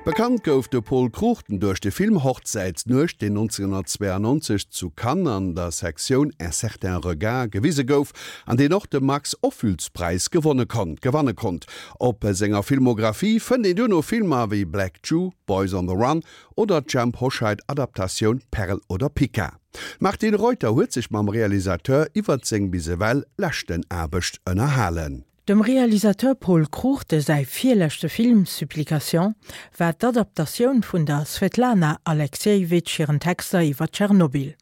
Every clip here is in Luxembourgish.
Bekannt gouf de Pol Cruchten duerch de Film Hochzäitsnuecht, deen 1992 zu Cannes an der Sektioun Un certain regard gewise gouf an deen och de Max Ophüls-Präis gewonne konnt gewanne konnt. Op senger Filmographie fënnt een duerno Filmer wéi Black Jew, Boys on the Run oder d'Jhemp Hoscheit-Adaptatioun Perl oder Pica. D'Martine Reuter huet sech mam Realisateur iwwert seng bis ewell leschten Aarbecht ënnerhalen. Dem Realisateur Pol Cruchten säi virleschte Film Supplication war d'Adaptatioun vun der Svetlana Aleksijewitsch hiren Texter iwwer Tschernobyl.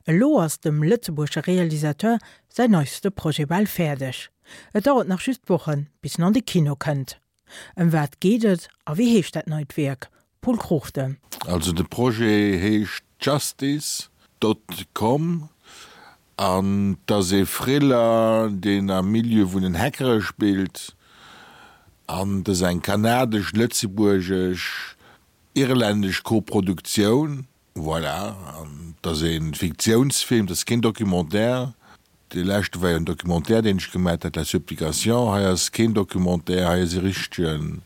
Elo ass dem lëtzebuergesche Realisateur säin neiste Projet bal fäerdeg. Et dauert nach just Wochen, bis en an de Kino kënnt. Ëm wat geet et a wéi heescht dat neit Wierk? Pol Cruchten. Also de Projet heescht Justice dot com An 't ass ee Thriller, deen am Milieu vun den Hackere spillt. An 't ass eng kanadesch-lëtzebuergesch, irlännesch Koproduktioun. Voilà. An 't ass ee Fiktiounsfilm, 't ass keen Documentaire. Dee leschte war jo en Documentaire, deen ech gemat hat, La Supplication. Hei ass keen Documentaire, hei ass e richtege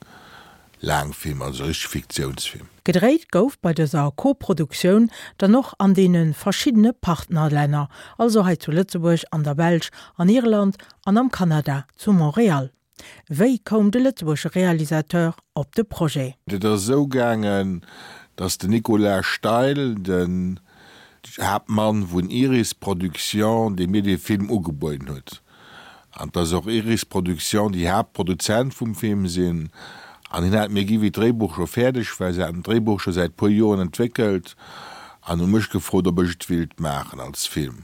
Laangfilm, also e richtege Fiktiounsfilm. Gedréit gouf bei dëser Koproduktioun dann och an deene verschiddene Partnerlänner, also hei zu Lëtzebuerg, an der Belsch, an Irland an am Kanada zu Montréal. Wéi koum de lëtzebuergesche Realisateur op de Projet? Et ass esou gaangen, datt den Nicolas Steil, den Haaptmann vun Iris Production, dee mir dee Film ugebueden huet, an dass och Iris Production déi Haaptproduzent vum Film sinn, an hien hat mir gi wéi d'Dréibuch scho fäerdeg war, se haten d'Dréibuch scho säit puer Joren entwéckelt an hu mech gefrot, ob ech et willt maachen als Film.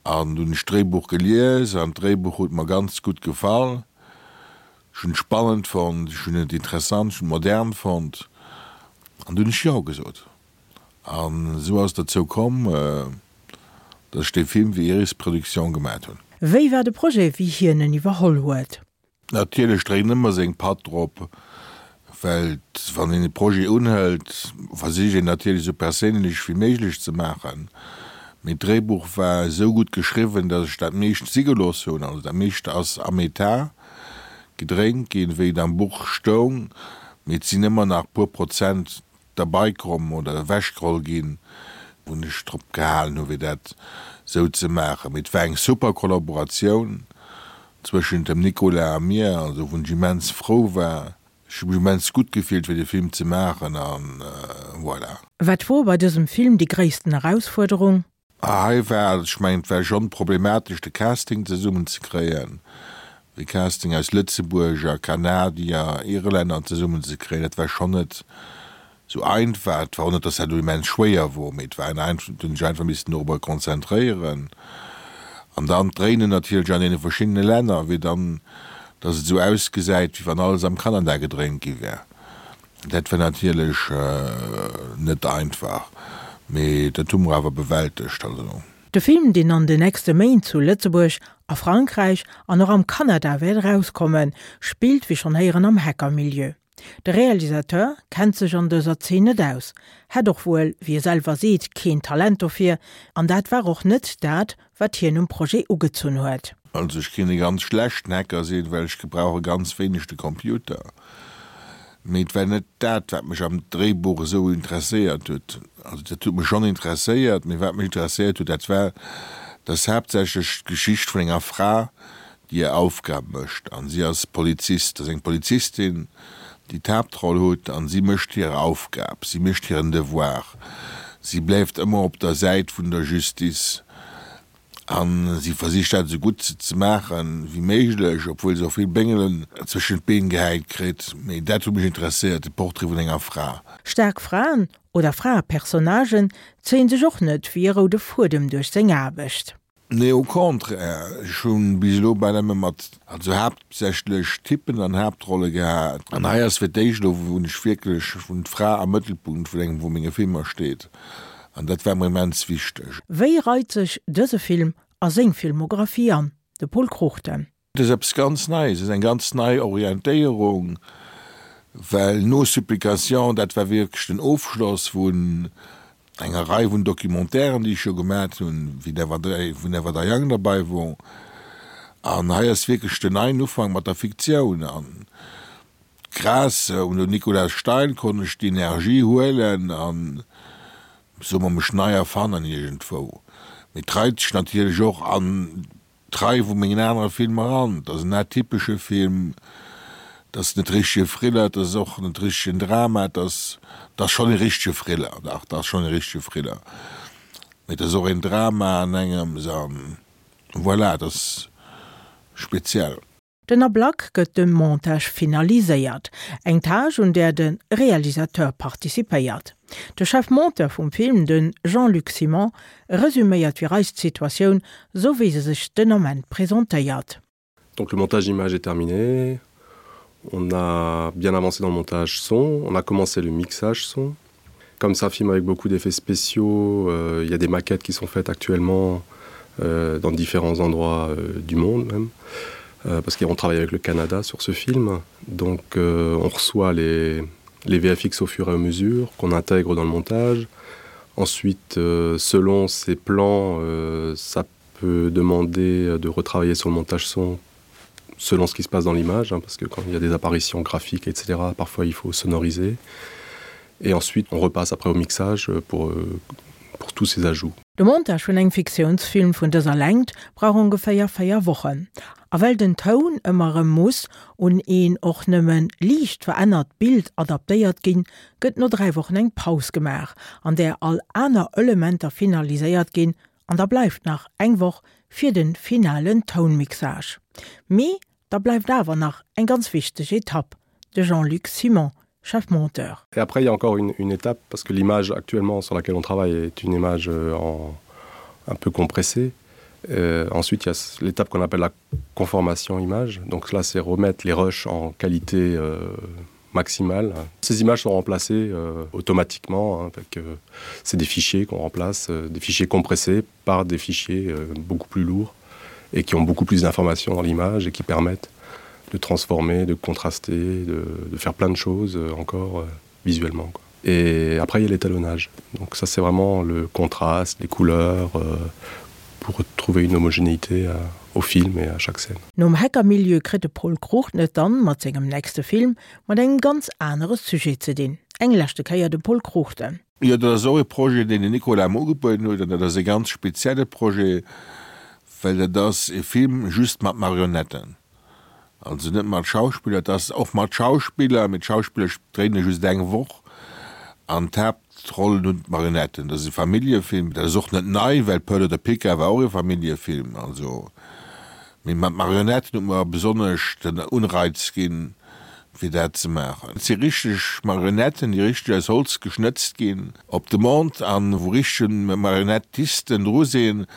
An dunn hunn ech d'Dréibuch gelies an d'Dréibuch huet mer ganz gutt gefall. Ech hunn et spannend fonnt, ech hunn et interessant, ech hunn et modern fonnt an dunn hunn ech Jo gesot. An esou ass et dozou komm, datt ech dee Film fir Iris Production gemat hunn. Wéi war de Projet, wéi hien en iwwerholl huet? Natierlech dréint ëmmer seng Patt drop, well wann een e Projet unhëlt, versicht een natierlech esou perséinlech wéi méiglech ze maachen. Mee d'Dréibuch war esou gutt geschriwwen, datt ech dat meescht si gelooss hunn. Also dat meescht ass am Etat gedréint ginn, wéi et am Buch stoung, mee et sinn ëmmer nach puer Prozent derbei komm oder ewechgeholl ginn, wou ech drop gehalen hu fir dat esou ze maachen. Mee et war eng super Kollaboratioun zwëschent dem Nicolas a mir, also wou ech immens frou war. Ech hu mech immens gutt gefillt fir de Film ze maachen an voilà. Wat wor bei dësem Film déi gréissten Erausfuerderung? Hei war, ech mengen, et war schonn problematesch de Casting zesummen ze kréien, de Casting aus Lëtzebuerger, Kanadier, Irlänner zesummen ze kréien, dat war schonn net sou einfach. Et war och net, datt dat elo immens schwéier wor, mee et war en, et hunn sech einfach missen dorobber konzentréieren. An dann d'Dréinen natierlech an deene verschiddene Länner, wéi dann, datt et esou ausgesäit, wéi wann alles am Kanada gedréint gi wär. Dat war natierlech net einfach, mee dat hu mer awer bewältegt. Also. De Film, deen an de nächste Méint zu Lëtzebuerg, a Frankräich an och am Kanada wäert erauskommen, spillt wéi schonn héieren am Hacker-Milieu. De Realisateur kennt sech an dëser Zeen net aus, hätt och wuel, wéi e selwer seet, keen Talent dofir, an dat war och net dat, wat hien um Projet ugezunn huet. Also ech kéint e ganz schlechten Hacker sinn, well ech gebrauche ganz wéineg de Computer. Mee et war net dat, wat mech am Dréibuch esou interesséiert huet. Also dat huet mech schonn interesséiert, mee wat mech interesséiert huet, dat war, dass haaptsächlech d'Geschicht vun enger Fra, déi hir Aufgab mécht. An si ass Polizist, ass eng Polizistin, déi d'Haaptroll huet, an si mécht hir Aufgab, si mécht hiren Devoir, si bleift ëmmer op der Säit vun der Justice. A si versicht dat esou gutt ze maachen wéi méiglech, obwuel se och vill Béngelen zwëschent d'Been gehäit kritt. Mee dat huet mech interesséiert, de Portrait vun enger Fra. Staark Fraen oder Fraepersonnagen zéien sech och net wéi e roude Fuedem duerch seng Aarbecht. Nee, au contraire, ech hu bis elo bal ëmmer mat, also haaptsächlech Typen an Haaptrolle gehat. An hei ass fir d'éischt elo, wou ech wierklech, wou d'Fra am Mëttelpunkt vun engem vu menge Filmer steet. An dat war mer immens wichteg. Wéi reit sech dëse Film a seng Filmographie an? De Pol Cruchten. Et ass eppes ganz Neies, et ass eng ganz nei Orientéierung, well no Supplication, dat war wierklech den Ofschloss vun enger Rei vun Documentairen, déi ech jo gemat hunn, wéi Never Die, wou Never Die Young derbei wor. An hei ass wierklech den neien Ufank mat der Fiktioun. An. Grâce un den Nicolas Steil konnt ech déi Energie huelen an, soe mer, mech nei erfannen iergendwou. Mee et reit sech natierlech och an d'Rei vu mengen anere Filmer an. Et ass en atypesche Film, et ass net richtege Thriller, et ass och net richtegen Drama, et ass, et ass schonn e richtege Thriller, dach, et ass schonn e richtege Thriller, mee et ass och een Drama an engems an voilà, et ass speziell. Den Ablack gëtt de Montage finaliséiert, eng Tâche un där de Realisateur participéiert. De Chef Monteur vum Film, de Jean-Luc Simon, resuméiert fir eis d'Situatioun, sou wéi se sech den Ament presentéiert. Donc le montage image est terminé. On a bien avancé dans le montage son, on a commencé le mixage son. Comme ça film avec beaucoup d'effets spéciaux, euh, il y a des maquettes qui sont faites actuellement euh, dans différents endroits euh, du monde même. Euh, parce qu'on travaille avec le Canada sur ce film. Donc euh, on reçoit les, les VFX au fur et à mesure qu'on intègre dans le montage. Ensuite, euh, selon ces plans, euh, ça peut demander de retravailler sur le montage son selon ce qui se passe dans l'image, parce que quand il y a des apparitions graphiques, etc., parfois il faut sonoriser. Et ensuite, on repasse après au mixage pour, euh, pour tous ces ajouts. De Montage vun engem Fiktiounsfilm vun dëser Längt brauch ongeféier 4 Wochen. A well den Toun ëmmer erëm muss un een och nëmme liicht verännert Bild adaptéiert ginn, gëtt no 3 Wochen eng Paus gemaach, an där all aner Elementer finaliséiert ginn an da bleift nach eng Woch fir de finalen Tounmixage. Mee da bleift awer nach eng ganz wichteg Etapp, de Jean-Luc Simon, chef monteur. Et après il y a encore une, une étape parce que l'image actuellement sur laquelle on travaille est une image euh, en, un peu compressée. Euh, ensuite il y a l'étape qu'on appelle la conformation image. Donc là c'est remettre les rushs en qualité euh, maximale. Ces images sont remplacées euh, automatiquement avec euh, c'est des fichiers qu'on remplace, euh, des fichiers compressés par des fichiers euh, beaucoup plus lourds et qui ont beaucoup plus d'informations dans l'image et qui permettent de transformer, de contraster, de, de faire plein de choses euh, encore euh, visuellement. Quoi. Et après il y a l'étalonnage. Donc ça c'est vraiment le contraste, les couleurs euh, pour trouver une homogénéité euh, au film et à chaque scène. Nom Hackermilieu kritt de Pol Cruchten et dann mat sengem nächste Film mat engem ganz anere Sujet ze dinn. Eng leschte Kéier de Pol Cruchten. Jo, dat ass och e Projet, deen den Nicolas mer ugebueden huet, an dat ass e ganz spezielle Projet, well dat ass e Film just mat Marionetten. Also net mat Schauspiller, et ass och mat Schauspiller, mee d'Schauspiller dréine just eng Woch an d'Haaptrollen hunn d'Marionetten. Dat ass e Familljefilm, dat ass och net nei, well Pearl oder Pica war och e Familljefilm. Also, mee mat Marionetten huet mer besonnesch den Unreiz ginn, fir dat ze maachen. Et si richteg Marionetten, déi richteg aus Holz geschnëtzt ginn op Demande an wou richteg Marionettisten dru sinn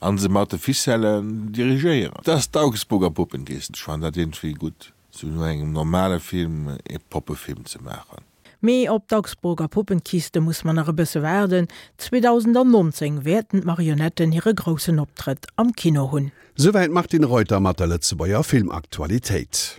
a se mat de Ficellen dirigéieren. Et ass d'Augsburger Puppenkiste. Ech fannen dat iergendwéi gutt, sou no engem normale Film ee Poppefilm ze maachen. Mee op d'Augsburger Puppenkiste muss mer nach e bësse waarden, 2019 wäerten d'Marionetten hire groussen Optrëtt am Kino hunn. Souwäit d'Martine Reuter mat der Lëtzebuerger Filmaktualitéit.